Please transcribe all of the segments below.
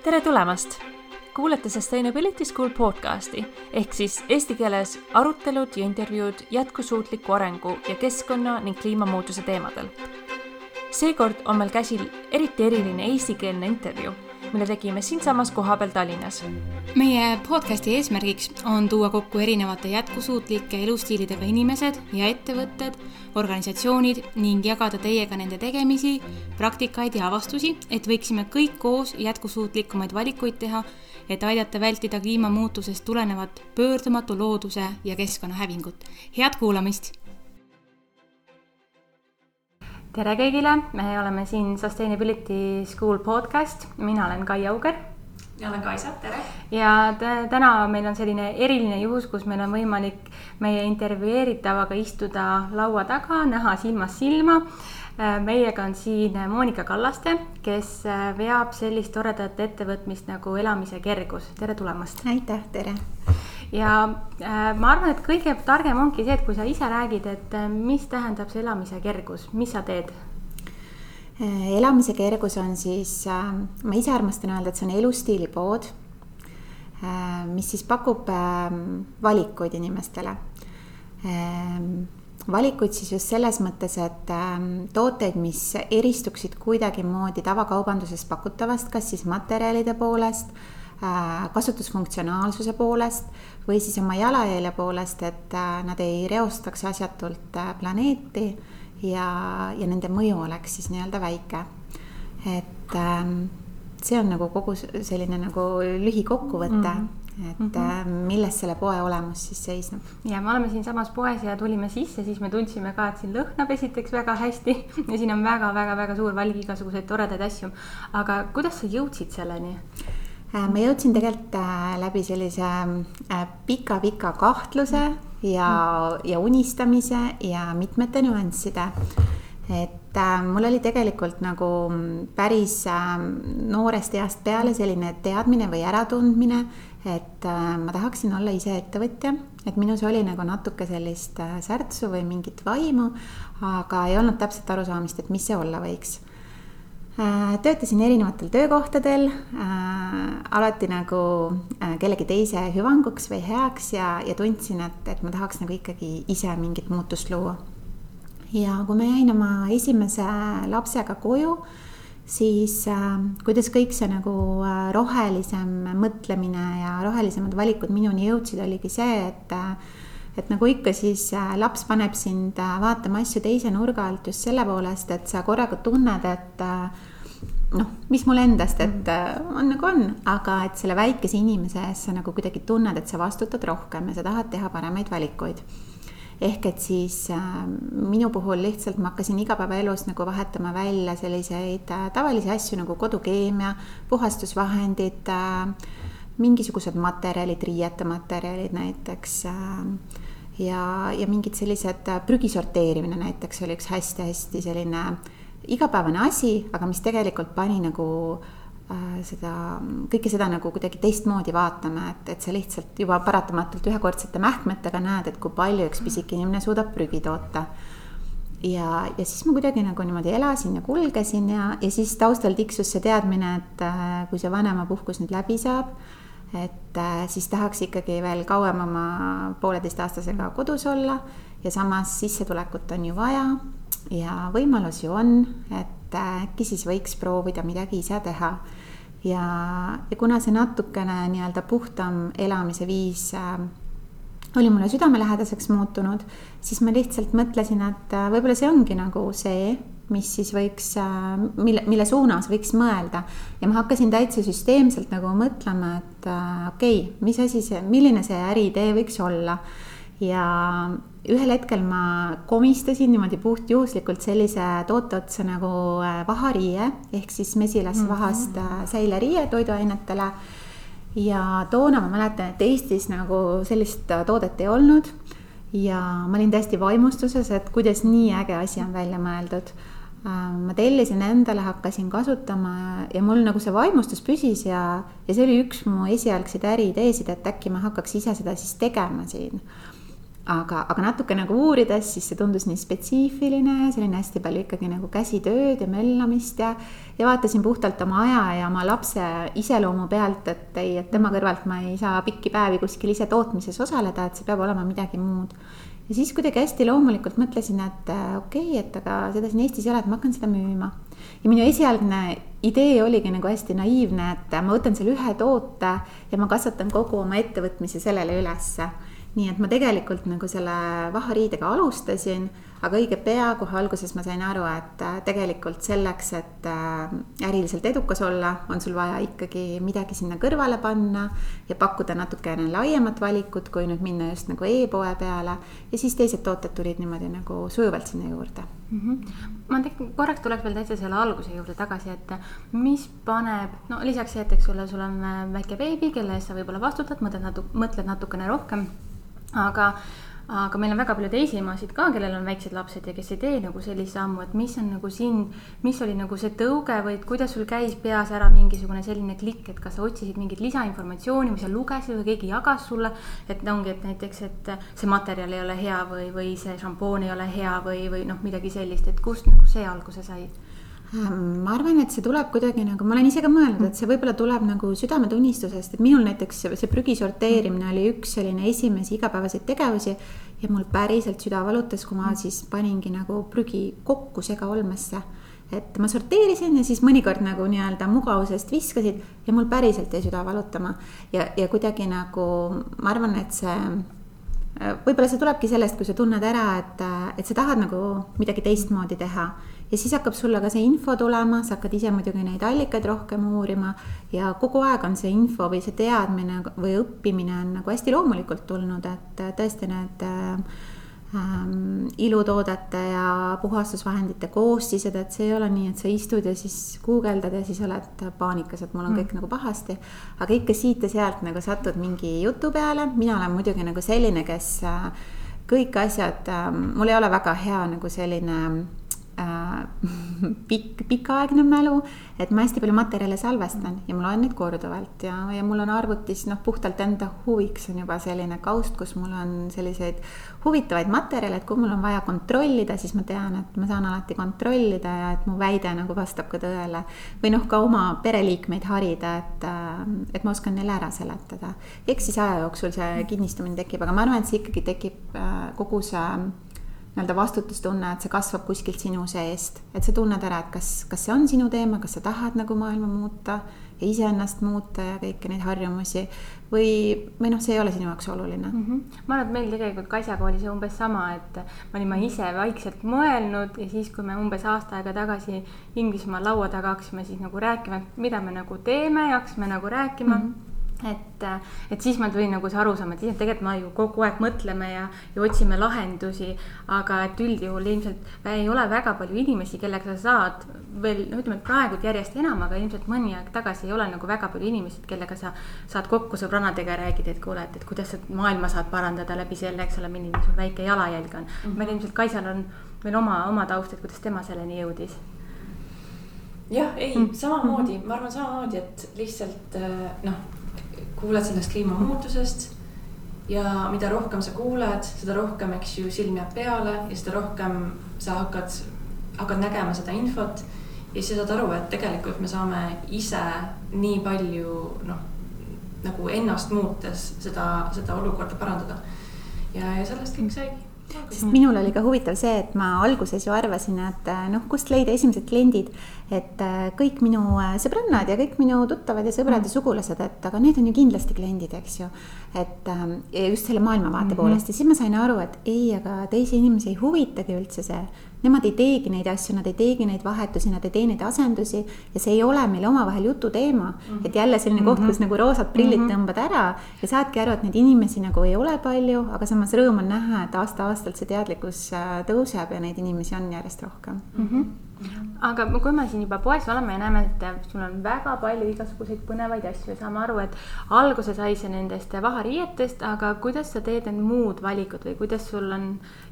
Tere tulemast! Kuulete Sustainability School podcasti ehk siis eesti keeles arutelud ja intervjuud jätkusuutliku arengu ja keskkonna ning kliimamuutuse teemadel. Seekord on meil käsil eriti eriline eestikeelne intervjuu, mille tegime siinsamas kohapeal Tallinnas. Meie podcasti eesmärgiks on tuua kokku erinevate jätkusuutlike elustiilidega inimesed ja ettevõtted, organisatsioonid ning jagada teiega nende tegemisi, praktikaid ja avastusi, et võiksime kõik koos jätkusuutlikumaid valikuid teha, et aidata vältida kliimamuutusest tulenevat pöördumatu looduse ja keskkonnahävingut. Head kuulamist! Tere kõigile! Me oleme siin Sustainability School podcast. Mina olen Kai Auger. Ja olen Kaisa, tere! Ja täna meil on selline eriline juhus, kus meil on võimalik meie intervjueeritavaga istuda laua taga, näha silmast silma. Meiega on siin Monika Kallaste, kes veab sellist toredat ettevõtmist nagu Elamise kergus. Tere tulemast! Aitäh, tere! Ja ma arvan, et kõige targem ongi see, et kui sa ise räägid, et mis tähendab see Elamise kergus, mis sa teed? Elamise kergus on siis, ma ise armastan öelda, et see on elustiilipood, mis siis pakub valikuid inimestele. Valikuid siis just selles mõttes, et tooteid, mis eristuksid kuidagi moodi tavakaubandusest pakutavast, kas siis materjalide poolest, kasutusfunktsionaalsuse poolest või siis oma jalajälje poolest, et nad ei reostaks asjatult planeeti ja nende mõju oleks siis nii-öelda väike. Et see on nagu kogu selline nagu lühikokkuvõte, et milles selle poe olemus siis seisneb. Ja me oleme siin samas poes ja tulime sisse, siis me tundsime ka, et siin lõhnab esiteks väga hästi ja siin on väga suur valik igasuguseid toredaid asju. Aga kuidas sa jõudsid selleni? Ma jõudsin tegelikult läbi sellise pika kahtluse ja unistamise ja mitmete nüansside. Et mul oli tegelikult nagu päris noorest east peale selline teadmine või äratundmine, et ma tahaksin olla ise ettevõtja, et minus oli nagu natuke sellist särtsu või mingit vaimu, aga ei olnud täpselt arusaamist, et mis see olla võiks. Töötasin erinevatel töökohtadel, alati nagu kellegi teise hüvanguks või heaks ja tundsin, et ma tahaks nagu ikkagi ise mingit muutust luua. Ja kui ma jäin oma esimese lapsega koju, siis kuidas kõik see nagu rohelisem mõtlemine ja rohelisemad valikud minuni jõudsid, oligi see, et nagu ikka siis laps paneb sind vaatama asju teise nurga alt just selle poolest, et sa korraga tunned, et mis mul endast, et on nagu on, aga et selle väikese inimese ees sa nagu kuidagi tunned, et sa vastutad rohkem ja sa tahad teha paremaid valikuid. Ehk et siis minu puhul lihtsalt ma hakkasin igapäevaelus nagu vahetama välja selliseid tavalisi asju nagu kodukeemia, puhastusvahendid, mingisugused materjalid, riietematerjalid näiteks ja mingid sellised prügisorteerimine näiteks oli üks hästi selline igapäevane asi, aga mis tegelikult pani nagu kõike seda nagu kuidagi teistmoodi vaatama, et sa lihtsalt juba paratamatult ühekordsete mähkmetega näed, et kui palju üks pisik inimene suudab prügi toota. Ja siis ma kuidagi nagu niimoodi elasin ja kulgesin ja siis taustal tiksus see teadmine, et kui see vanemapuhkus nüüd läbi saab, et siis tahaks ikkagi veel kauem oma 1,5-aastasega kodus olla ja samas sissetulekut on ju vaja ja võimalus ju on, et äkki siis võiks proovida midagi ise teha. Ja kuna see natukene nii-öelda puhtam elamise viis oli mulle südamelähedaseks muutunud, siis ma lihtsalt mõtlesin, et võib-olla see ongi nagu see, mis siis võiks, mille suunas võiks mõelda. Ja ma hakkasin täitsa süsteemselt nagu mõtlema, et okei, mis asi see, milline see äriidee võiks olla. Ja ühel hetkel ma komistasin niimoodi puht juhuslikult sellise toote otsa nagu vahariie, ehk siis mesilasvahast säileriie toiduainetele. Ja toona ma mäletan, et Eestis nagu sellist toodet ei olnud ja ma olin täiesti vaimustuses, et kuidas nii äge asi on välja mõeldud. Ma tellisin endale, hakkasin kasutama ja mul nagu see vaimustus püsis ja see oli üks mu esialgseid äriideesid, et äkki ma hakkaks ise seda siis tegema siin. aga natuke nagu uurides, siis see tundus nii spetsiifiline, selline hästi palju ikkagi nagu käsitööd ja möllamist ja vaatasin puhtalt oma aja ja oma lapse iseloomu pealt, et ei, et tema kõrvalt ma ei saa pikki päevi kuskil ise tootmises osaleda, et see peab olema midagi muud. Ja siis kuidagi hästi loomulikult mõtlesin, et okei, et aga seda siin Eestis ei ole, et ma hakkan seda müüma. Ja minu esialgne idee oligi nagu hästi naiivne, et ma võtan selle ühe toote ja ma kasvatan kogu oma ettevõtmise sellele ülesse. Nii et ma tegelikult nagu selle vahariidega alustasin, aga õige pea kohe alguses ma sain aru, et tegelikult selleks, et äriliselt edukas olla, on sul vaja ikkagi midagi sinna kõrvale panna ja pakkuda natukene laiemat valikut, kui nüüd minna just nagu e-poe peale. Ja siis teised tooted tulid niimoodi nagu sujuvalt sinna juurde. Ma korraks tuleks veel täitsa selle alguse juurde tagasi, et mis paneb, no lisaks see, et sul on väike beebi, kelle eest sa võib-olla vastutad, mõtled natukene rohkem. Aga meil on väga palju teisi emasid ka, kellel on väiksed lapsed ja kes ei tee nagu sellise sammu, et mis on nagu mis oli nagu see tõuge või kuidas sul käis peas ära mingisugune selline klikk, et kas sa otsisid mingit lisainformatsiooni või sa lugesid või keegi jagas sulle, et ongi, et näiteks, et see materjal ei ole hea või see šampoon ei ole hea või midagi sellist, et kust nagu see alguse sai? Ma arvan, et see tuleb kuidagi nagu, ma olen ise ka mõelnud, et see võib-olla tuleb nagu südametunnistusest, et minul näiteks see prügi sorteerimine oli üks selline esimesi igapäevaseid tegevusi ja mul päriselt süda valutas, kui ma siis paningi nagu prügi kokku segaolmesse. Et ma sorteerisin ja siis mõnikord nagu nii-öelda mugavusest viskasid ja mul päriselt jäi süda valutama ja kuidagi nagu, ma arvan, et see võib-olla see tulebki sellest, kui sa tunned ära, et sa tahad nagu midagi teistmoodi teha. Ja siis hakkab sulle ka see info tulema, sa hakkad ise muidugi neid allikaid rohkem uurima ja kogu aeg on see info või see teadmine või õppimine on nagu hästi loomulikult tulnud, et tõesti need ilutoodete ja puhastusvahendite koostised, et see ei ole nii, et sa istud ja siis guugeldad ja siis oled paanikas, et mul on kõik nagu pahasti, aga ikka siit ja sealt nagu satud mingi jutu peale. Mina olen muidugi nagu selline, kes kõik asjad, mul ei ole väga hea nagu selline pikaaegne mälu, et ma hästi palju materjale salvestan ja ma loen neid korduvalt ja mul on arvutis puhtalt enda huviks on juba selline kaust, kus mul on selliseid huvitavaid materjale, et kui mul on vaja kontrollida, siis ma tean, et ma saan alati kontrollida ja et mu väide nagu vastab ka tõele või ka oma pereliikmeid harida, et ma oskan neile ära seletada. Eks siis aja jooksul see kinnistumine tekib, aga ma arvan, et see ikkagi tekib kogu see vastutustunne, et see kasvab kuskilt sinu seest, et sa tunned ära, et kas see on sinu teema, kas sa tahad nagu maailma muuta ja iseennast muuta ja kõiki neid harjumusi või see ei ole sinu jaoks oluline. Ma arvan, et meil tegelikult Kaisjaga oli see umbes sama, et ma olin ise vaikselt mõelnud ja siis, kui me umbes aasta aega tagasi Inglismaa laua taga hakkasime siis nagu rääkima, mida me nagu teeme ja hakkasime nagu rääkima, et siis ma tulin nagu see arusaam, et tegelikult ma ju kogu aeg mõtleme ja otsime lahendusi, aga et üldjuhul ilmselt ei ole väga palju inimesi, kellega sa saad veel, ütleme, et praegu järjest enam, aga ilmselt mõni aeg tagasi ei ole nagu väga palju inimesi, kellega sa saad kokku sõbrannadega ja räägid, et kuule, et kuidas sa maailma saad parandada läbi selle, eks ole, milline sul väike jalajälg on. Meil ilmselt Kaisjal on veel oma taust, et kuidas tema selleni jõudis. Jah, ei, samamoodi, ma arvan samamoodi, et lihtsalt kuuled sellest kliimamuutusest ja mida rohkem sa kuuled, seda rohkem, eks ju, silm jääb peale ja seda rohkem sa hakkad nägema seda infot ja siis saad aru, et tegelikult me saame ise nii palju nagu ennast muutes seda olukorda parandada ja sellest kõik saigi. Sest minul oli ka huvitav see, et ma alguses ju arvasin, et kust leida esimesed kliendid, et kõik minu sõbrannad ja kõik minu tuttavad ja sõbrad ja sugulased, et aga need on ju kindlasti kliendid, eks ju, et just selle maailmavaate poolest ja siis ma sain aru, et ei, aga teisi inimesi ei huvitagi üldse see, nemad ei teegi neid asju, nad ei teegi neid vahetusi, nad ei tee neid asendusi ja see ei ole meil omavahel jutu teema, et jälle selline koht, kus nagu roosad prillid tõmbad ära ja saadki aru, et neid inimesi nagu ei ole palju, aga samas rõõm on näha, et aasta-aastalt see teadlikkus tõuseb ja neid inimesi on järjest rohkem. Aga kui me siin juba poes oleme ja näeme, et sul on väga palju igasuguseid põnevaid asju ja saame aru, et alguse sai see nendest vahariietest, aga kuidas sa teed need muud valikud või kuidas sul on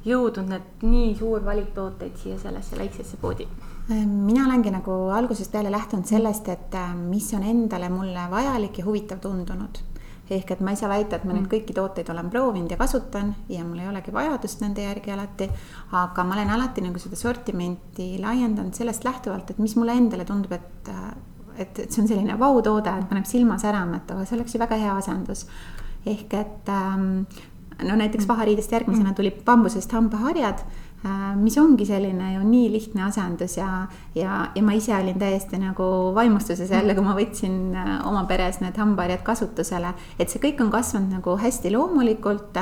jõudnud need nii suur valik tooteid siia sellesse väiksesse poodi? Mina olengi nagu algusest peale lähtunud sellest, et mis on endale mulle vajalik ja huvitav tundunud. ehk et ma ei saa väita, et ma nüüd kõiki tooteid olen proovinud ja kasutan ja mul ei olegi vajadust nende järgi alati, aga ma olen alati nagu seda sortimenti laiendanud sellest lähtuvalt, et mis mulle endale tundub, et see on selline vautoode, et paneb silma särama, et see oleks ju väga hea asendus. Ehk et no näiteks vahariidest järgmisena tuli bambusest hambaharjad, mis ongi selline ju nii lihtne asendus ja ma ise olin täiesti nagu vaimustuses jälle, kui ma võtsin oma peres need hambaharjad kasutusele, et see kõik on kasvanud nagu hästi loomulikult.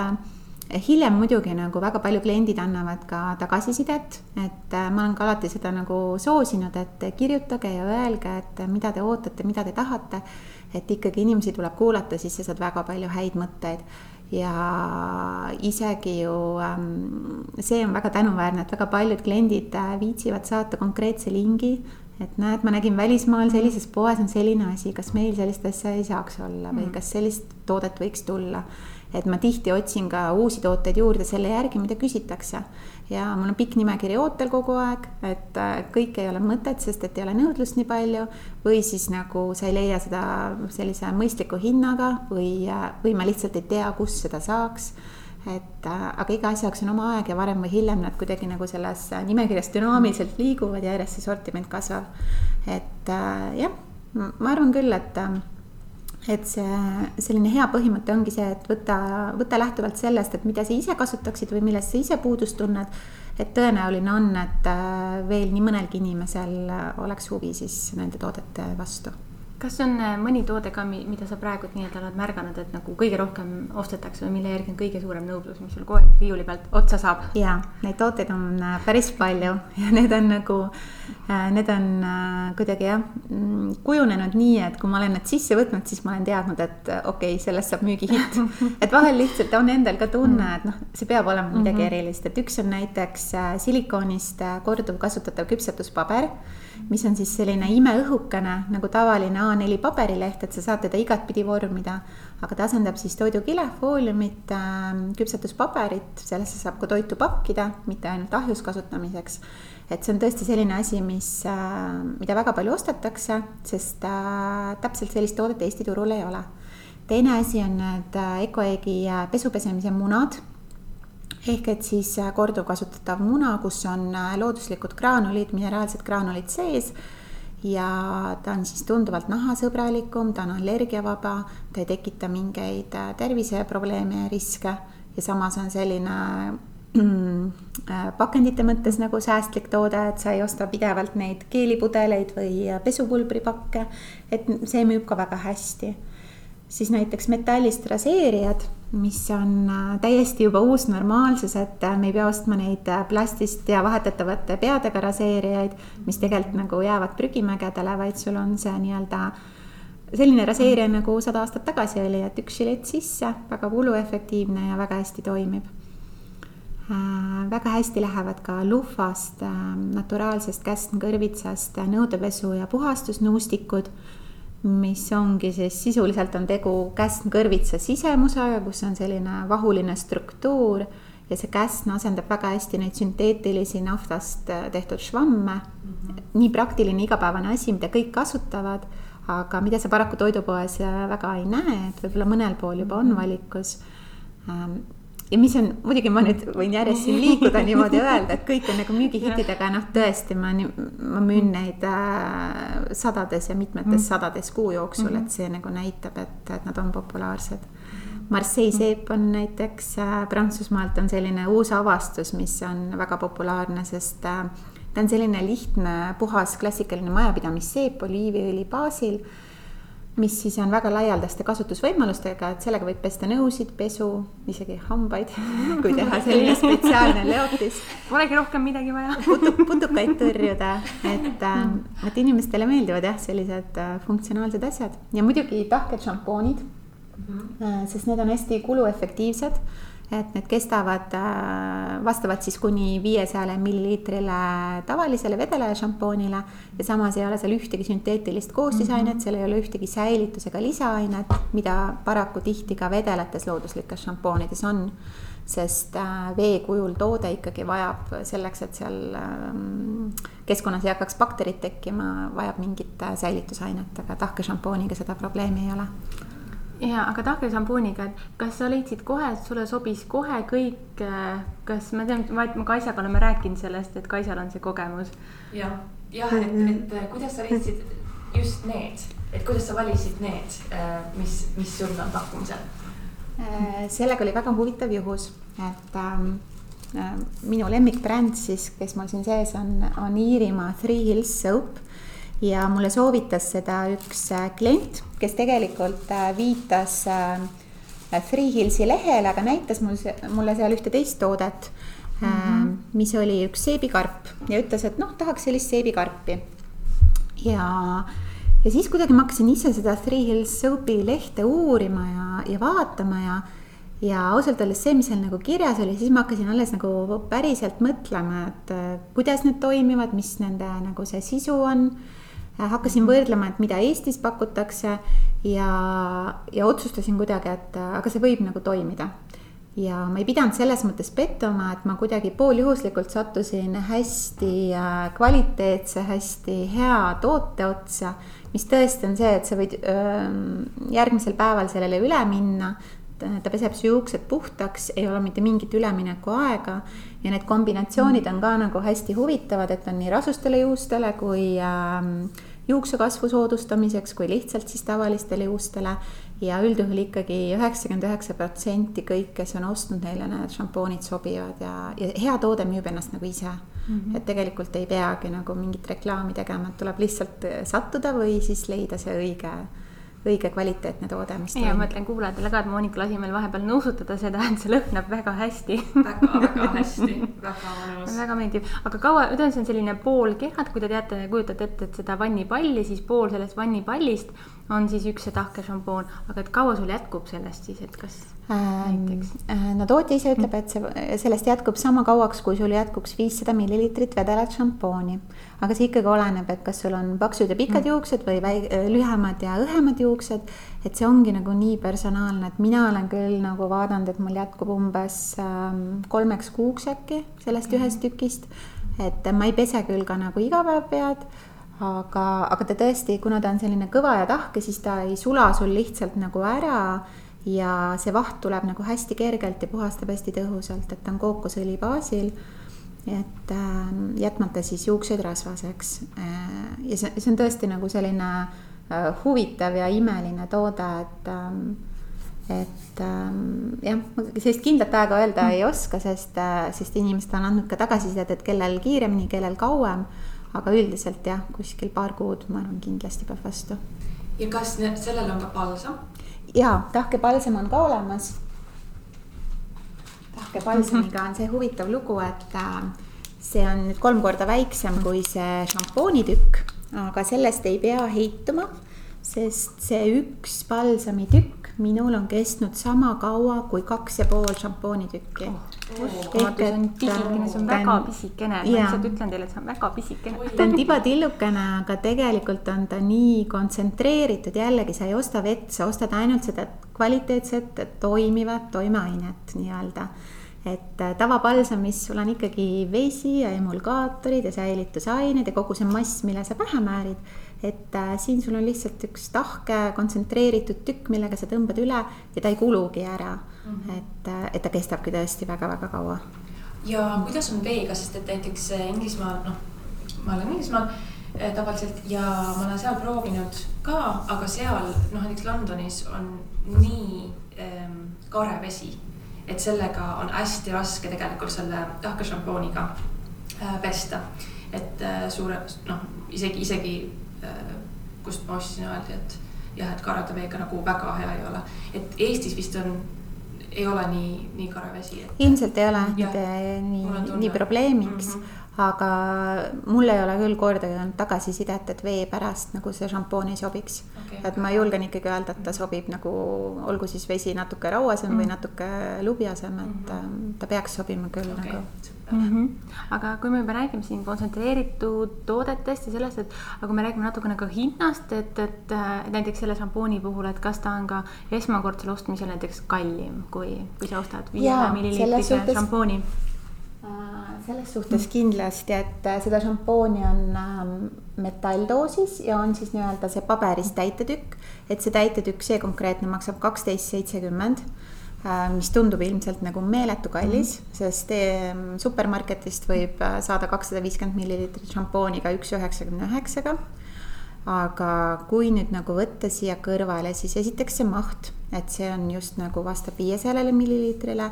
Hiljem muidugi nagu väga palju kliendid annavad ka tagasisidet, et ma olen ka alati seda nagu soosinud, et kirjutage ja öelge, et mida te ootate, mida te tahate, et ikkagi inimesi tuleb kuulata, siis sa saad väga palju häid mõtteid. Ja isegi ju see on väga tänuväärne, et väga paljud kliendid viitsivad saata konkreetse lingi, et näed, ma nägin välismaal sellises poes on selline asi, kas meil sellist asja ei saaks olla või kas sellist toodet võiks tulla. Et ma tihti otsin ka uusi tooteid juurde selle järgi, mida küsitakse. Ja mul on pikk nimekiri ootel kogu aeg, et kõik ei ole mõtet, sest et ei ole nõudlust nii palju või siis nagu sa ei leia seda sellise mõistliku hinnaga või ma lihtsalt ei tea, kus seda saaks. Aga iga asjaks on oma aeg ja varem või hiljem nad kuidagi nagu selles nimekirjas dünaamiliselt liiguvad ja järjest see sortiment kasvab. Et jah, ma arvan küll, et see selline hea põhimõte ongi see, et võta lähtuvalt sellest, et mida sa ise kasutaksid või millest sa ise puudust tunned, et tõenäoline on, et veel nii mõnelgi inimesel oleks huvi siis nende toodete vastu. Kas on mõni toode ka, mida sa praegu nii-öelda oled märganud, et nagu kõige rohkem ostetakse või mille järgi on kõige suurem nõudlus, mis sul kogu aeg riiuli pealt otsa saab? Jaa, neid tooteid on päris palju ja need on kuidagi kujunenud nii, et kui ma olen need sisse võtnud, siis ma olen teadnud, et okei, sellest saab müügihitt. Et vahel lihtsalt on endal ka tunne, et see peab olema midagi erilist. Et üks on näiteks silikoonist korduv kasutatav küpsetuspaber, mis on siis selline imeõhukene nagu tavaline A4 paberileht, et sa saad teda igat pidi vormida, aga ta asendab siis toidukile, fooliumit, küpsetuspaberit, sellesse saab ka toitu pakkida, mitte ainult ahjus kasutamiseks. Et see on tõesti selline asi, mida väga palju ostetakse, sest täpselt sellist toodet Eesti turul ei ole. Teine asi on need Ecoegi pesupesemise munad, ehk et siis korduv kasutatav muna, kus on looduslikud graanulid, mineraalsed graanulid sees ja ta on siis tunduvalt nahasõbralikum, ta on allergiavaba, ta ei tekita mingeid terviseprobleeme ja riske ja samas on selline pakendite mõttes nagu säästlik toode, et sa ei osta pidevalt neid keelipudeleid või pesupulbripakke, et see müüb ka väga hästi. Siis näiteks metallist raseerijad, mis on täiesti juba uus normaalsus, et me ei pea ostma neid plastist ja vahetatavate peadega raseerijaid, mis tegelikult nagu jäävad prügimägedele, vaid sul on see nii-öelda selline raseerija nagu 100 aastat tagasi oli, et üks žilett sisse, väga kuluefektiivne ja väga hästi toimib. Väga hästi lähevad ka luhvast, naturaalsest käsnkõrvitsast nõudepesu ja puhastusnuustikud, mis ongi siis sisuliselt on tegu käsnkõrvitsa sisemusega, kus on selline vahuline struktuur ja see käsn asendab väga hästi neid sünteetilisi naftast tehtud švamme. Nii praktiline igapäevane asi, mida kõik kasutavad, aga mida sa paraku toidupoes väga ei näe, et võib-olla mõnel pool juba on valikus. Ja mis on, muidugi ma nüüd võin järjest siin liikuda niimoodi öelda, et kõik on nagu müügihittidega, tõesti ma müün neid sadades ja mitmetes sadades kuu jooksul, et see nagu näitab, et nad on populaarsed. Marseille seep on näiteks Prantsusmaalt on selline uus avastus, mis on väga populaarne, sest ta on selline lihtne, puhas, klassikaline majapidamisseep oliiviõli baasil, mis siis on väga laialdaste kasutusvõimalustega, et sellega võib pesta nõusid, pesu, isegi hambaid, kui teha selline spetsiaalne leotis. Polegi rohkem midagi vaja. Putukaid tõrjuda, et inimestele meeldivad sellised funktsionaalsed asjad. Ja muidugi tahked šampoonid, sest need on hästi kuluefektiivsed, et need kestavad, vastavad siis kuni 500 milliliitrile tavalisele vedele šampoonile ja samas ei ole seal ühtegi sünteetilist koostisainet, seal ei ole ühtegi säilitusega lisaainet, mida paraku tihti ka vedeletes looduslikes šampoonides on, sest vee kujul toode ikkagi vajab selleks, et seal keskkonnas ei hakkaks bakterid tekkima, vajab mingit säilitusainet, aga tahke šampooniga seda probleemi ei ole. Ja, aga tahke šampooniga, et kas sa leidsid kohe, et sulle sobis kohe kõik, kas ma tean, ma Kaisaga oleme rääkinud sellest, et Kaisal on see kogemus. Jah, et kuidas sa leidsid just need, et kuidas sa valisid need, mis sul on pakkumisel? Sellega oli väga huvitav juhus, et minu lemmikbränd siis, kes mul siin sees on Iirimaa Three Hills Soap ja mulle soovitas seda üks klient, kes tegelikult viitas Three Hillsi lehele, aga näitas mulle seal ühte teist toodet, mis oli üks seebikarp ja ütles, et tahaks sellist seebikarpi. Ja siis kuidagi ma hakkasin ise seda Three Hills Soapi lehte uurima ja vaatama ja ausalt öeldes see, mis seal nagu kirjas oli, siis ma hakkasin alles nagu päriselt mõtlema, et kuidas need toimivad, mis nende nagu see sisu on. Hakkasin võrdlema, et mida Eestis pakutakse ja otsustasin kuidagi, et aga see võib nagu toimida. Ja ma ei pidanud selles mõttes pettuma, et ma kuidagi pooljuhuslikult sattusin hästi kvaliteetse, hästi hea toote otsa, mis tõesti on see, et sa võid järgmisel päeval sellele üle minna, ta peseb su juuksed puhtaks, ei ole mitte mingit ülemineku aega ja need kombinatsioonid on ka nagu hästi huvitavad, et on nii rasustele juustele kui juuksekasvu soodustamiseks kui lihtsalt siis tavalistele juustele ja üldjuhul ikkagi 99% kõik, kes on ostnud neile need šampoonid sobivad ja hea toode müüb ennast nagu ise. Et tegelikult ei peagi nagu mingit reklaami tegema, et tuleb lihtsalt sattuda või siis leida see õige kvaliteetne toode, mis ja ma mõtlen kuulajatele ka, et Monika lasi meil vahepeal nõusutada seda, et see lõhnab väga hästi. Väga hästi, väga mõnus. Väga meeldib. Aga kaua, see on selline pool kehad, kui te teate, kujutate ette, et seda vannipalli, siis pool sellest vannipallist on siis üks see tahke šampoon. Aga et kaua sul jätkub sellest siis, et kas näiteks? No tootja ise ütleb, et sellest jätkub sama kauaks, kui sul jätkuks 500 millilitrit vedelat šampooni. Aga see ikkagi oleneb, et kas sul on paksud ja pikad juuksed või lühemad ja õhemad juuksed, et see ongi nagu nii personaalne, et mina olen küll nagu vaadanud, et mul jätkub umbes 3 kuuks äkki sellest ühest tükist, et ma ei pese küll ka nagu iga päev pead, aga ta tõesti, kuna ta on selline kõva ja tahke, siis ta ei sula sul lihtsalt nagu ära ja see vaht tuleb nagu hästi kergelt ja puhastab hästi tõhusalt, et ta on kookosõli baasil, et jätmata siis juuksed rasvaseks ja see on tõesti nagu selline huvitav ja imeline toode, et jah, sellist kindlat aega öelda ei oska, sest inimesed on andnud ka tagasisidet, et kellel kiiremini, kellel kauem, aga üldiselt jah, kuskil paar kuud ma arvan kindlasti peab vastu. Ja kas sellel on ka palsam? Jaa, tahkepalsam on ka olemas. Tahkepalsamiga on see huvitav lugu, et see on nüüd 3 korda väiksem kui see šampoonitükk, aga sellest ei pea heituma, sest see üks palsamitükk minul on kestnud sama kaua kui 2,5 šampoonitükki. Uskumatu, see on pisikene, see on väga pisikene. Ma lihtsalt ütlen teile, et see on väga pisikene. Ta on tibatillukene, aga tegelikult on ta nii kontsentreeritud. Jällegi, sa ei osta vett, sa ostad ainult seda kvaliteetset, toimivat toimeainet nii-öelda. Et tavapalsamis sul on ikkagi vesi ja emulgaatorid ja säilitusained ja kogu see mass, mille sa pähe määrid. Et siin sul on lihtsalt üks tahke kontsentreeritud tükk, millega sa tõmbad üle ja ta ei kulugi ära. Et ta kestabki tõesti väga-väga kaua. Ja kuidas on veega, sest et näiteks Inglismaal, ma olen Inglismaal tavaliselt ja ma olen seal proovinud ka, aga seal, näiteks Londonis on nii kare vesi, et sellega on hästi raske tegelikult selle tahke šampooniga pesta. Et isegi kust ma ostsin öeldi, et jah, et karade veega nagu väga hea ei ole. Et Eestis vist ei ole nii kare vesi. Ilmselt ei ole nii probleemiks, aga mul ei ole küll kordagi olnud tagasisidet, et vee pärast nagu see šampoon ei sobiks. Et ma julgen ikkagi öelda, et ta sobib nagu, olgu siis vesi natuke rauasem või natuke lubjasem, et ta peaks sobima küll nagu. Aga kui me juba räägime siin kontsentreeritud toodetest ja sellest, et aga me räägime natuke nagu hinnast, et näiteks selle šampooni puhul, et kas ta on ka esmakordsel ostmisel näiteks kallim, kui sa ostad 5 millilitrise šampooni? selles suhtes kindlasti, et seda šampooni on metalldoosis ja on siis nii-öelda see paberist täitetükk, et see täitetükk, see konkreetne maksab 12,70, mis tundub ilmselt nagu meeletu kallis, sest supermarketist võib saada 250 millilitrit šampooni ka 1,99-ga. Aga kui nüüd nagu võtta siia kõrvale, siis esiteks see maht, et see on just nagu vastab 500 milliliitrile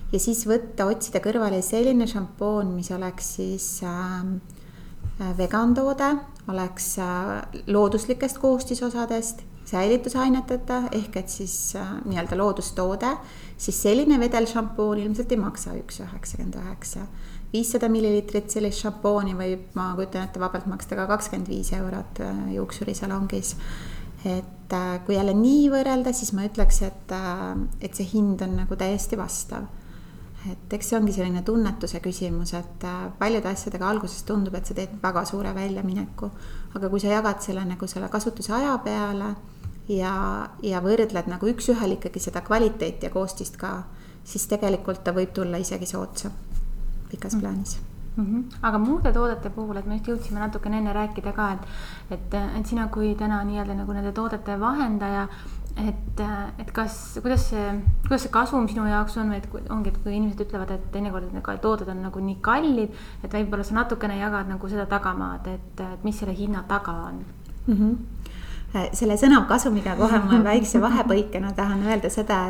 ja siis otsida kõrvale selline šampoon, mis oleks siis vegantoode, oleks looduslikest koostisosadest, säilitusaineteta ehk et siis nii-öelda loodustoode, siis selline vedelšampoon ilmselt ei maksa 1,99. 500 milliliitrit sellist šampooni võib, ma kujutan ette, vabalt maksta ka 25 eurot juuksurisalongis. Et kui jälle nii võrrelda, siis ma ütleks, et see hind on nagu täiesti vastav. Et eks see ongi selline tunnetuse küsimus, et paljude asjadega alguses tundub, et sa teed väga suure väljamineku, aga kui sa jagad selle nagu selle kasutuse aja peale ja võrdled nagu üks-ühel ikkagi seda kvaliteeti ja koostist ka, siis tegelikult ta võib tulla isegi soodsa pikas plaanis. Aga muude toodete puhul, et me just jõudsime natukene enne rääkida ka, et sina kui täna nii-öelda nagu nende toodete vahendaja, et kuidas see kasum sinu jaoks on, et ongi, et kui inimesed ütlevad, et teinekord need tooted on nagu nii kallid, et võib-olla sa natukene jagad nagu seda tagamaad, et mis selle hinna taga on? Selle sõna kasumiga kohe ma väikse vahepõikena tahan öelda seda,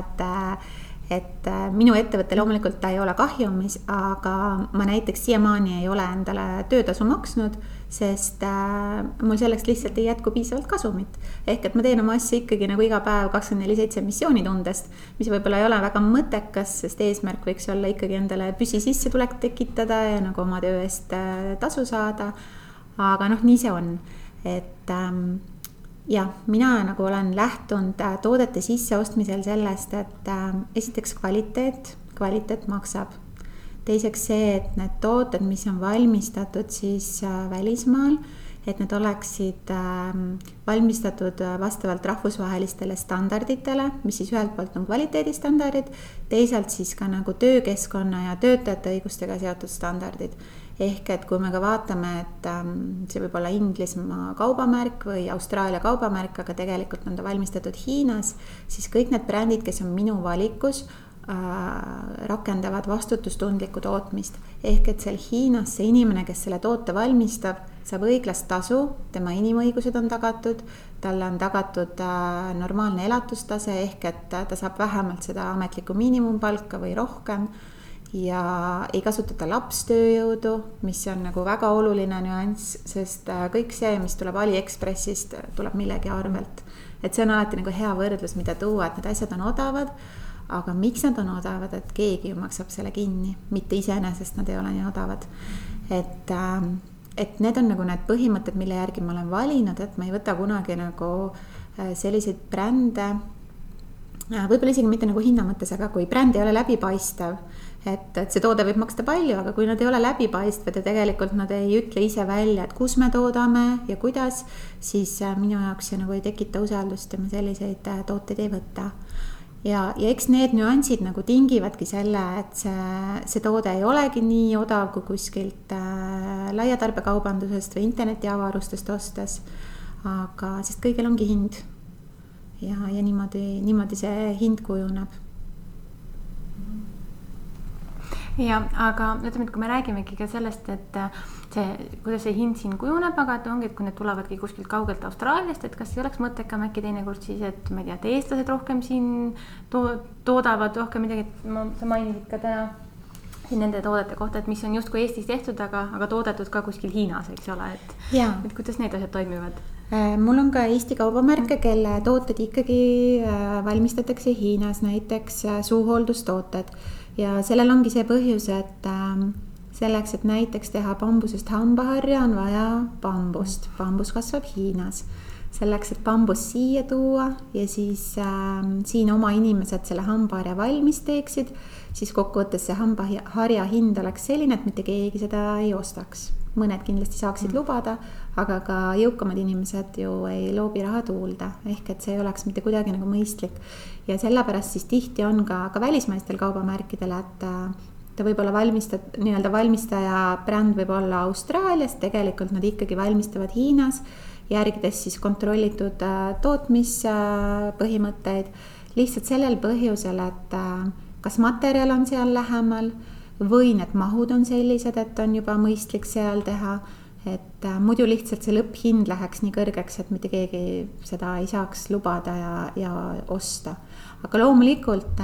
et minu ettevõte loomulikult ta ei ole kahjumis, aga ma näiteks siiamaani ei ole endale töötasu maksnud, sest mul selleks lihtsalt ei jätku piisavalt kasumit. Ehk et ma teen oma asja ikkagi nagu iga päev 24/7 missioonitundest, mis võib-olla ei ole väga mõttekas, sest eesmärk võiks olla ikkagi endale püsisissetulek tekitada ja nagu oma töö eest tasu saada. Aga nii see on, et ja mina nagu olen lähtunud toodete sisseostmisel sellest, et esiteks kvaliteet maksab. Teiseks see, et need tooted, mis on valmistatud siis välismaal, et need oleksid valmistatud vastavalt rahvusvahelistele standarditele, mis siis ühelt poolt on kvaliteedistandardid, teisalt siis ka nagu töökeskkonna ja töötajate õigustega seotud standardid. Ehk et kui me ka vaatame, et see võib olla Inglismaa kaubamärk või Austraalia kaubamärk, aga tegelikult on ta valmistatud Hiinas, siis kõik need brändid, kes on minu valikus, rakendavad vastutustundlikku tootmist. Ehk et seal Hiinas see inimene, kes selle toote valmistab, saab õiglast tasu, tema inimõigused on tagatud, talle on tagatud normaalne elatustase, ehk et ta saab vähemalt seda ametlikku miinimumpalka või rohkem ja ei kasutata lapstööjõudu, mis on nagu väga oluline nüanss, sest kõik see, mis tuleb AliExpressist, tuleb millegi arvelt. Et see on alati nagu hea võrdlus, mida tuua, et need asjad on odavad, aga miks nad on odavad, et keegi ju maksab selle kinni, mitte iseenesest nad ei ole nii odavad. Et need on nagu need põhimõtted, mille järgi ma olen valinud, et ma ei võta kunagi nagu selliseid brände, võib-olla isegi mitte nagu hinna mõttes, aga kui bränd ei ole läbipaistev, et see toode võib maksta palju, aga kui nad ei ole läbipaistvad ja tegelikult nad ei ütle ise välja, et kus me toodame ja kuidas, siis minu jaoks see nagu ei tekita usaldust ja ma selliseid tooteid ei võta. Ja eks need nüansid nagu tingivadki selle, et see toode ei olegi nii odav kui kuskilt laiatarbekaubandusest või internetiavarustest ostes, aga sest kõigil ongi hind ja niimoodi see hind kujuneb. Ja, aga ütleme, et kui me räägimegi ka sellest, et kuidas see hind siin kujuneb, aga et ongi, et kui need tulevadki kuskilt kaugelt Austraaliast, et kas ei oleks mõttekam äkki teinekord siis, et ma ei tea, et eestlased rohkem siin toodavad rohkem midagi, et sa mainisid ka täna siin nende toodete kohta, et mis on justkui Eestis tehtud, aga toodetud ka kuskil Hiinas, eks ole, et kuidas need asjad toimivad? Mul on ka Eesti kaubamärke, kelle tooted ikkagi valmistatakse Hiinas, näiteks suuhooldustooted. Ja sellel ongi see põhjus, et selleks, et näiteks teha bambusest hambaharja, on vaja bambust. Bambus kasvab Hiinas. Selleks, et bambus siia tuua ja siis siin oma inimesed selle hambaharja valmis teeksid, siis kokkuvõttes see hambaharja hind oleks selline, et mitte keegi seda ei ostaks. Mõned kindlasti saaksid lubada, aga ka jõukamad inimesed ju ei loobi raha tuulda. Ehk et see ei oleks mitte kuidagi nagu mõistlik. Ja sellepärast siis tihti on ka välismaistel kaubamärkidel, ta võib olla nii-öelda valmistaja bränd võib olla Austraalias, tegelikult nad ikkagi valmistavad Hiinas, järgides siis kontrollitud tootmispõhimõtteid, lihtsalt sellel põhjusel, et kas materjal on seal lähemal või need mahud on sellised, et on juba mõistlik seal teha, et muidu lihtsalt see lõpphind läheks nii kõrgeks, et mitte keegi seda ei saaks lubada ja osta. Aga loomulikult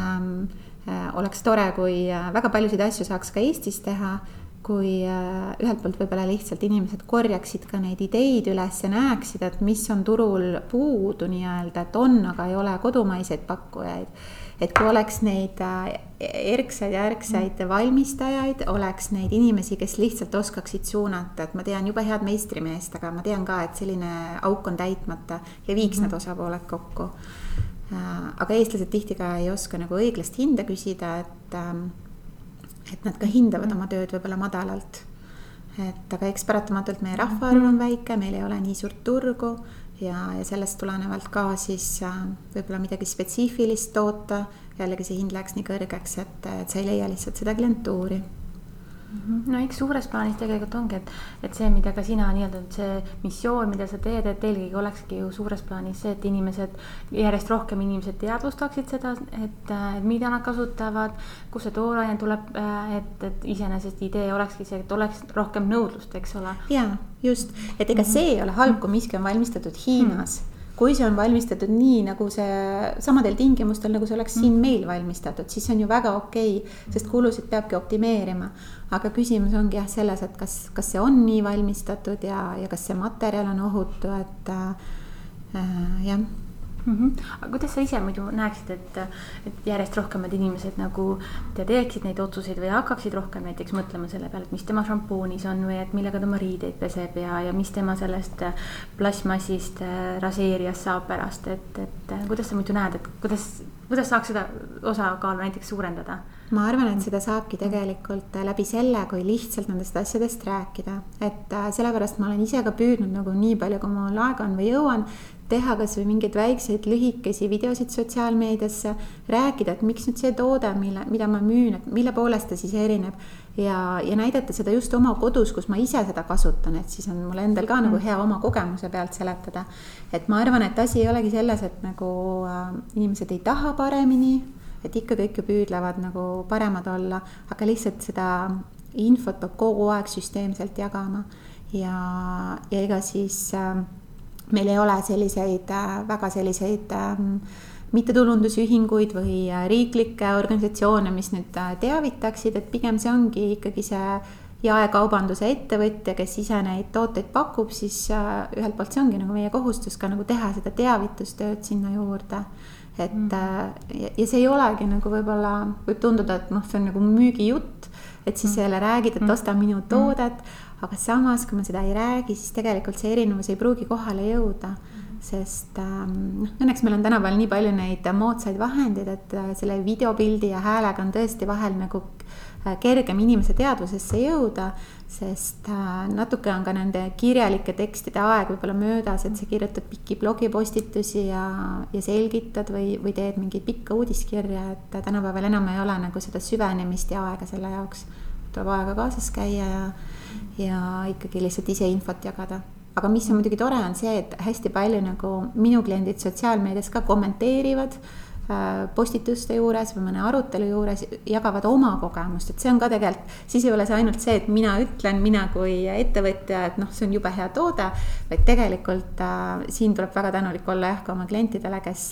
oleks tore, kui väga paljusid asju saaks ka Eestis teha, kui ühelt poolt võib-olla lihtsalt inimesed korjaksid ka neid ideid üles ja näeksid, et mis on turul puudu nii-öelda, et on, aga ei ole kodumaiseid pakkujaid. Et kui oleks neid erksaid ja ärksaid valmistajaid, oleks neid inimesi, kes lihtsalt oskaksid suunata, et ma tean jube head meistrimeest, aga ma tean ka, et selline auk on täitmata ja viiks need osapooled kokku. Aga eestlased tihti ka ei oska nagu õiglast hinda küsida, et nad ka hindavad oma tööd võib-olla madalalt. Aga eks paratamatult meie rahvaarv on väike, meil ei ole nii suurt turgu ja sellest tulenevalt ka siis võib-olla midagi spetsiifilist toota, jällegi see hind läheks nii kõrgeks, et sa ei leia lihtsalt seda klientuuri. No eks suures plaanis tegelikult ongi, et see, mida ka sina nii-öelda, see missioon, mida sa teed, et eelkõige olekski ju suures plaanis see, et järjest rohkem inimesed teadvustaksid seda, et mida nad kasutavad, kus see tooraine tuleb, et iseenesest idee olekski see, et oleks rohkem nõudlust, eks ole? Jaa, just, et ega see ei ole halb, kui miski on valmistatud Hiinas. Kui see on valmistatud nii, nagu see samadel tingimustel, nagu see oleks siin meil valmistatud, siis see on ju väga okei, sest kulusid peabki optimeerima. Aga küsimus ongi selles, et kas see on nii valmistatud ja kas see materjal on ohutu, et jah. Aga kuidas sa ise muidu näeksid, et järjest rohkemad inimesed nagu teeksid neid otsuseid või hakkaksid rohkem näiteks mõtlema selle peale, et mis tema šampoonis on või et millega tema riideid peseb ja mis tema sellest plasmassist raseerijas saab pärast, et kuidas sa muidu näed, et kuidas saaks seda osakaalu näiteks suurendada? Ma arvan, et seda saabki tegelikult läbi selle, kui lihtsalt nendest asjadest rääkida, et sellepärast ma olen ise ka püüdnud nagu nii palju, kui mul aega on või jõuan, teha kas või mingeid väikseid lühikesi videosid sotsiaalmeediasse, rääkida, et miks nüüd see toode, mida ma müün, et mille poolest ta siis erineb ja näidata seda just oma kodus, kus ma ise seda kasutan, et siis on mul endal ka nagu hea oma kogemuse pealt seletada. Et ma arvan, et asi ei olegi selles, et nagu inimesed ei taha paremini, et ikka kõik püüdlevad nagu paremad olla, aga lihtsalt seda infot peab kogu aeg süsteemselt jagama ja ega siis meil ei ole väga selliseid mittetulundusühinguid või riiklikke organisatsioone, mis nüüd teavitaksid, et pigem see ongi ikkagi see jaekaubanduse ettevõtja, kes ise neid tooteid pakub, siis ühelt poolt see ongi nagu meie kohustus ka nagu teha seda teavitustööd sinna juurde. Ja see ei olegi nagu võib-olla, võib tunduda, et see on nagu müügijutt, et siis selle räägid, et osta minu toodet, aga samas, kui ma seda ei räägi, siis tegelikult see erinevus ei pruugi kohale jõuda, sest õnneks meil on tänapäeval nii palju neid moodsaid vahendeid, et selle videopildi ja häälega on tõesti vahel nagu kergem inimese teadvusesse jõuda, sest natuke on ka nende kirjalike tekstide aeg võib-olla möödas, et sa kirjutad pikki blogipostitusi ja selgitad või teed mingi pikka uudiskirja, et tänapäeval enam ei ole nagu seda süvenemist ja aega selle jaoks. Tuleb aega kaasas käia ja ikkagi lihtsalt ise infot jagada. Aga mis on muidugi tore on see, et hästi palju nagu minu kliendid sotsiaalmeedias ka kommenteerivad postituste juures või mõne arutelu juures, jagavad oma kogemust, et see on ka tegelikult, siis ei ole see ainult see, et mina ütlen, mina kui ettevõtja, et see on jube hea toode, vaid tegelikult siin tuleb väga tänulik olla ka oma klientidele, kes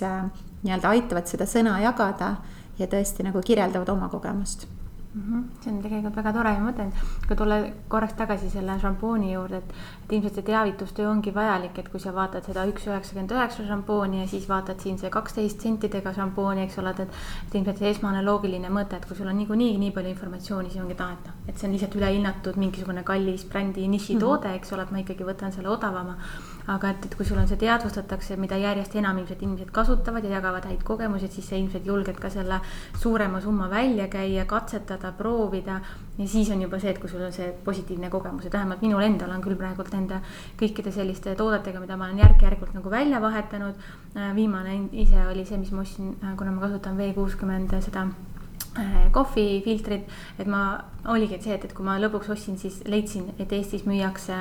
nii-öelda aitavad seda sõna jagada ja tõesti nagu kirjeldavad oma kogemust. See on tegelikult väga tore ja mõtlen, kui tulla korraks tagasi selle šampooni juurde, et ilmselt see teavitustöö ongi vajalik, et kui sa vaatad seda 1,99 šampooni ja siis vaatad siin see 12 sentidega šampooni, eks ole, et ilmselt see esmane loogiline mõte, et kui sul on nii palju informatsiooni, siis ongi taeta, et see on lihtsalt ülehinnatud mingisugune kallis brändi nišitoode, eks ole, et ma ikkagi võtan selle odavama. Aga et kui sul on see teadvustatakse, mida järjest enam ilmselt inimesed kasutavad ja jagavad häid kogemusi, siis sa ilmselt julged ka selle suurema summa välja käia, katsetada, proovida ja siis on juba see, et kui sul on see positiivne kogemus, et vähemalt minul endal on küll praegult nende kõikide selliste toodetega, mida ma olen järk-järgult nagu välja vahetanud. Viimane ise oli see, mis ma ostsin, kuna ma kasutan V60 seda kohvifiltrid, et ma oligi see, et kui ma lõpuks ostsin, siis leidsin, et Eestis müüakse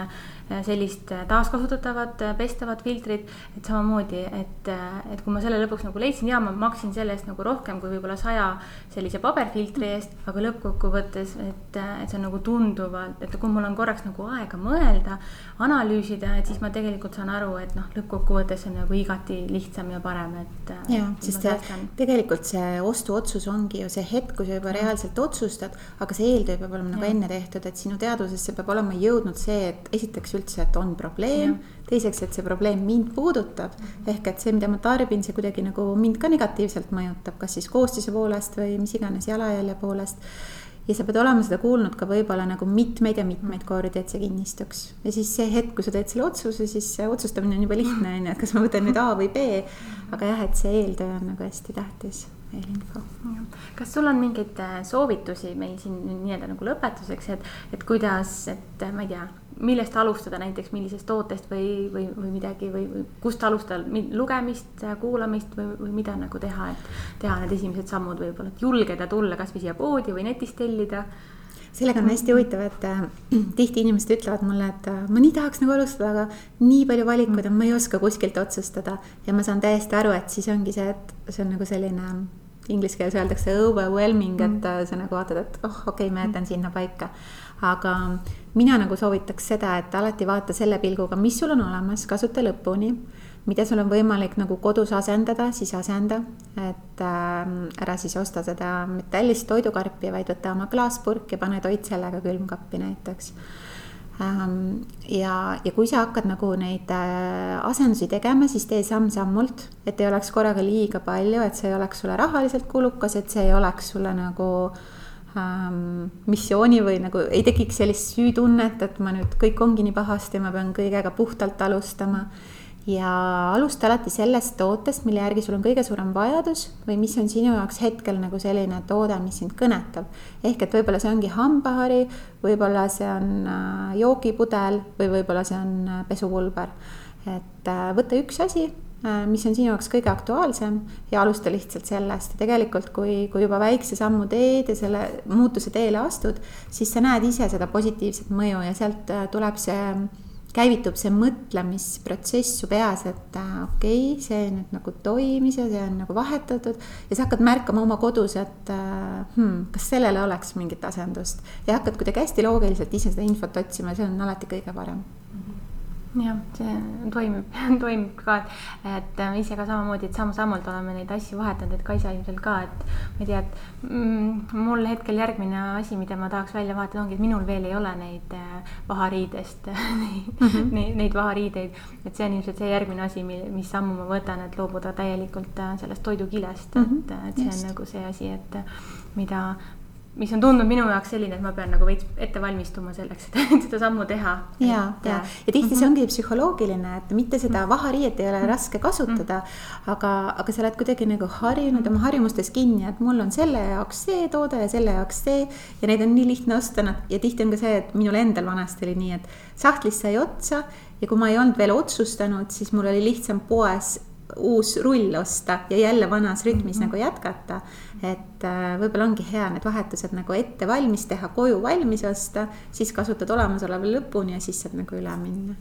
sellist taaskasutatavat pestavat filtrit, et samamoodi, et kui ma selle lõpuks nagu leidsin ja ma maksin selle eest nagu rohkem kui võib-olla 100 sellise paberfiltri eest, aga lõppkokkuvõttes, et see on nagu tunduvalt, et kui mul on korraks nagu aega mõelda, analüüsida, et siis ma tegelikult saan aru, et lõppkokkuvõttes on nagu igati lihtsam ja parem, et ja, sest tegelikult see ostuotsus ongi ju see hetk, kui sa juba reaalselt otsustad, aga see eeltöö peab olema nagu enne tehtud, et sinu teadvusesse peab olema jõudnud see, et esiteks üldse, et on probleem, teiseks, et see probleem mind puudutab, ehk et see, mida ma tarbin, see kuidagi nagu mind ka negatiivselt mõjutab, kas siis koostise poolest või mis iganes jalajälje poolest. Ja sa pead olema seda kuulnud ka võib-olla nagu mitmeid kordi, et see kinnistuks. Ja siis see hetk, kui sa teed selle otsuse, siis see otsustamine on juba lihtne, et kas ma võtan nüüd A või B, aga jah, et see eeltöö on nagu hästi tähtis. Eelinfo. Kas sul on mingeid soovitusi meil siin nii-öelda nagu lõpetuseks, et kuidas, et ma ei tea, millest alustada näiteks, millisest tootest või midagi või kust alustada lugemist, kuulamist või mida nagu teha, et teha need esimesed sammud võib-olla, et julgeda tulla kas või siia poodi või netist tellida? Sellega on hästi huvitav, et tihti inimesed ütlevad mulle, et ma nii tahaks nagu alustada, aga nii palju valikuid on, ma ei oska kuskilt otsustada ja ma saan täiesti aru, et siis ongi see, et see on nagu selline inglise keeles öeldakse overwhelming, et sa nagu vaatad, et okei, ma jätan sinna paika. Aga mina nagu soovitaks seda, et alati vaata selle pilguga, mis sul on olemas, kasuta lõpuni, mida sul on võimalik nagu kodus asendada, siis asenda, et ära siis osta seda metallist toidukarpi, vaid võtta oma klaaspurk ja pane toit sellega külmkappi näiteks. Ja kui sa hakkad nagu neid asendusi tegema, siis tee samm-sammult, et ei oleks korraga liiga palju, et see ei oleks sulle rahaliselt kulukas, et see ei oleks sulle nagu missiooni või nagu ei tekiks sellist süütunnet, et ma nüüd kõik ongi nii pahasti, ma pean kõigega puhtalt alustama. Ja alusta alati sellest tootest, mille järgi sul on kõige suurem vajadus või mis on sinu jaoks hetkel nagu selline toode, mis sind kõnetab. Ehk et võib-olla see ongi hambahari, võib-olla see on joogipudel või võib-olla see on pesupulber. Et võtta üks asi, mis on sinu jaoks kõige aktuaalsem ja alusta lihtsalt sellest. Ja tegelikult, kui juba väikse sammu teed ja selle muutuse teele astud, siis sa näed ise seda positiivset mõju ja sealt tuleb käivitub see mõtlemisprotsess su peas, et okei, see nüüd nagu toimis ja see on nagu vahetatud ja sa hakkad märkama oma kodus, et kas sellele oleks mingit asendust ja hakkad kuidagi hästi loogiliselt ise seda infot otsima ja see on alati kõige parem. Jah, see toimib ka, et ise ka samamoodi, et samm-sammult oleme neid asju vahetanud, et Kaisa ilmselt ka, et ma ei tea, et mul hetkel järgmine asi, mida ma tahaks välja vahetada ongi, et minul veel ei ole neid vahariidest, neid vahariideid, et see on ilmselt see järgmine asi, mis sammu ma võtan, et loobuda täielikult sellest toidukilest, et see on nagu see asi, et mis on tundnud minu jaoks selline, et ma pean nagu veits ette valmistuma selleks, et seda sammu teha. Ja tihti see ongi psühholoogiline, et mitte seda vahariiet ei ole raske kasutada, aga sa oled kuidagi nagu harjunud oma harjumustes kinni, et mul on selle jaoks see toode ja selle jaoks see ja neid on nii lihtne osta ja tihti on ka see, et minul endal vanasti oli nii, et sahtlis sai otsa ja kui ma ei olnud veel otsustanud, siis mul oli lihtsam poes uus rull osta ja jälle vanas rütmis nagu jätkata, et võib-olla ongi hea need vahetused nagu ette valmis teha, koju valmis osta, siis kasutad olemasoleva lõpuni ja siis saad nagu üle minna.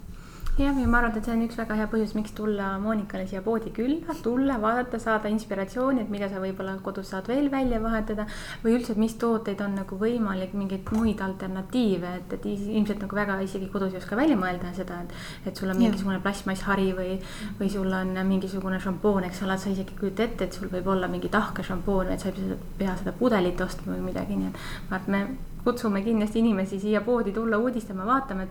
Ja ma arvan, et see on üks väga hea põhjus, miks tulla Moonikale siia poodi külla, tulla, vaadata, saada inspiratsiooni, et mida sa võib-olla kodus saad veel välja vahetada või üldse, et mis tooteid on nagu võimalik mingeid muid alternatiive, et ilmselt nagu väga isegi kodus ei oska välja mõelda seda, et sul on mingisugune plastmasshari või sul on mingisugune šampoon, eks ole, sa isegi kujuta ette, et sul võib olla mingi tahke šampoon, et sa ei pea seda pudelit ostma või midagi, nii et me kutsume kindlasti inimesi siia poodi tulla uudistama, vaatama,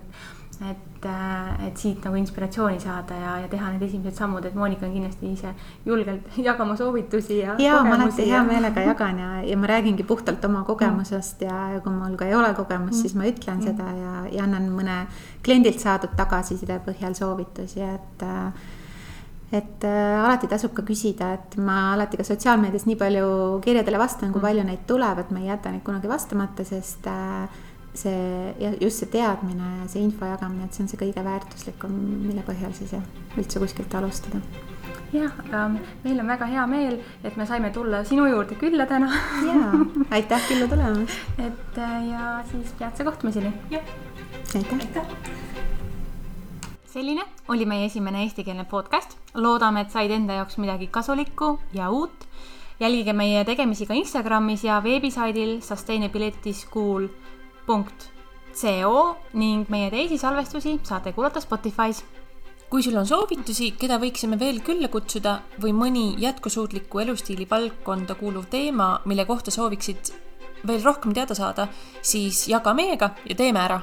et siit nagu inspiratsiooni saada ja teha need esimesed sammud, et Moonika on kindlasti ise julgelt jagama soovitusi ja kogemusi. Ma alati hea meelega jagan ja ma räägingi puhtalt oma kogemusest ja kui mul ka ei ole kogemust, siis ma ütlen seda ja annan mõne kliendilt saadud tagasiside põhjal soovitusi, et alati tasub ka küsida, et ma alati ka sotsiaalmeedias nii palju kirjadele vastan, kui palju neid tuleb, et ma ei jäta neid kunagi vastamata, sest just see teadmine ja see info jagamine, et see on see kõige väärtuslikum, mille põhjal siis üldse kuskilt alustada. jah, aga meil on väga hea meel, et me saime tulla sinu juurde külla täna. Jaa, aitäh külla tulemast. Et ja siis peatse kohtumiseni. Jah. Aitäh. Selline oli meie esimene eestikeelne podcast. Loodame, et said enda jaoks midagi kasulikku ja uut. Jälgige meie tegemisi ka Instagramis ja veebisaidil sustainabilityschool.co ning meie teisi salvestusi saate kuulata Spotify's. Kui sul on soovitusi, keda võiksime veel külla kutsuda või mõni jätkusuutliku elustiili valdkonda kuuluv teema, mille kohta sooviksid veel rohkem teada saada, siis jaga meiega ja teeme ära!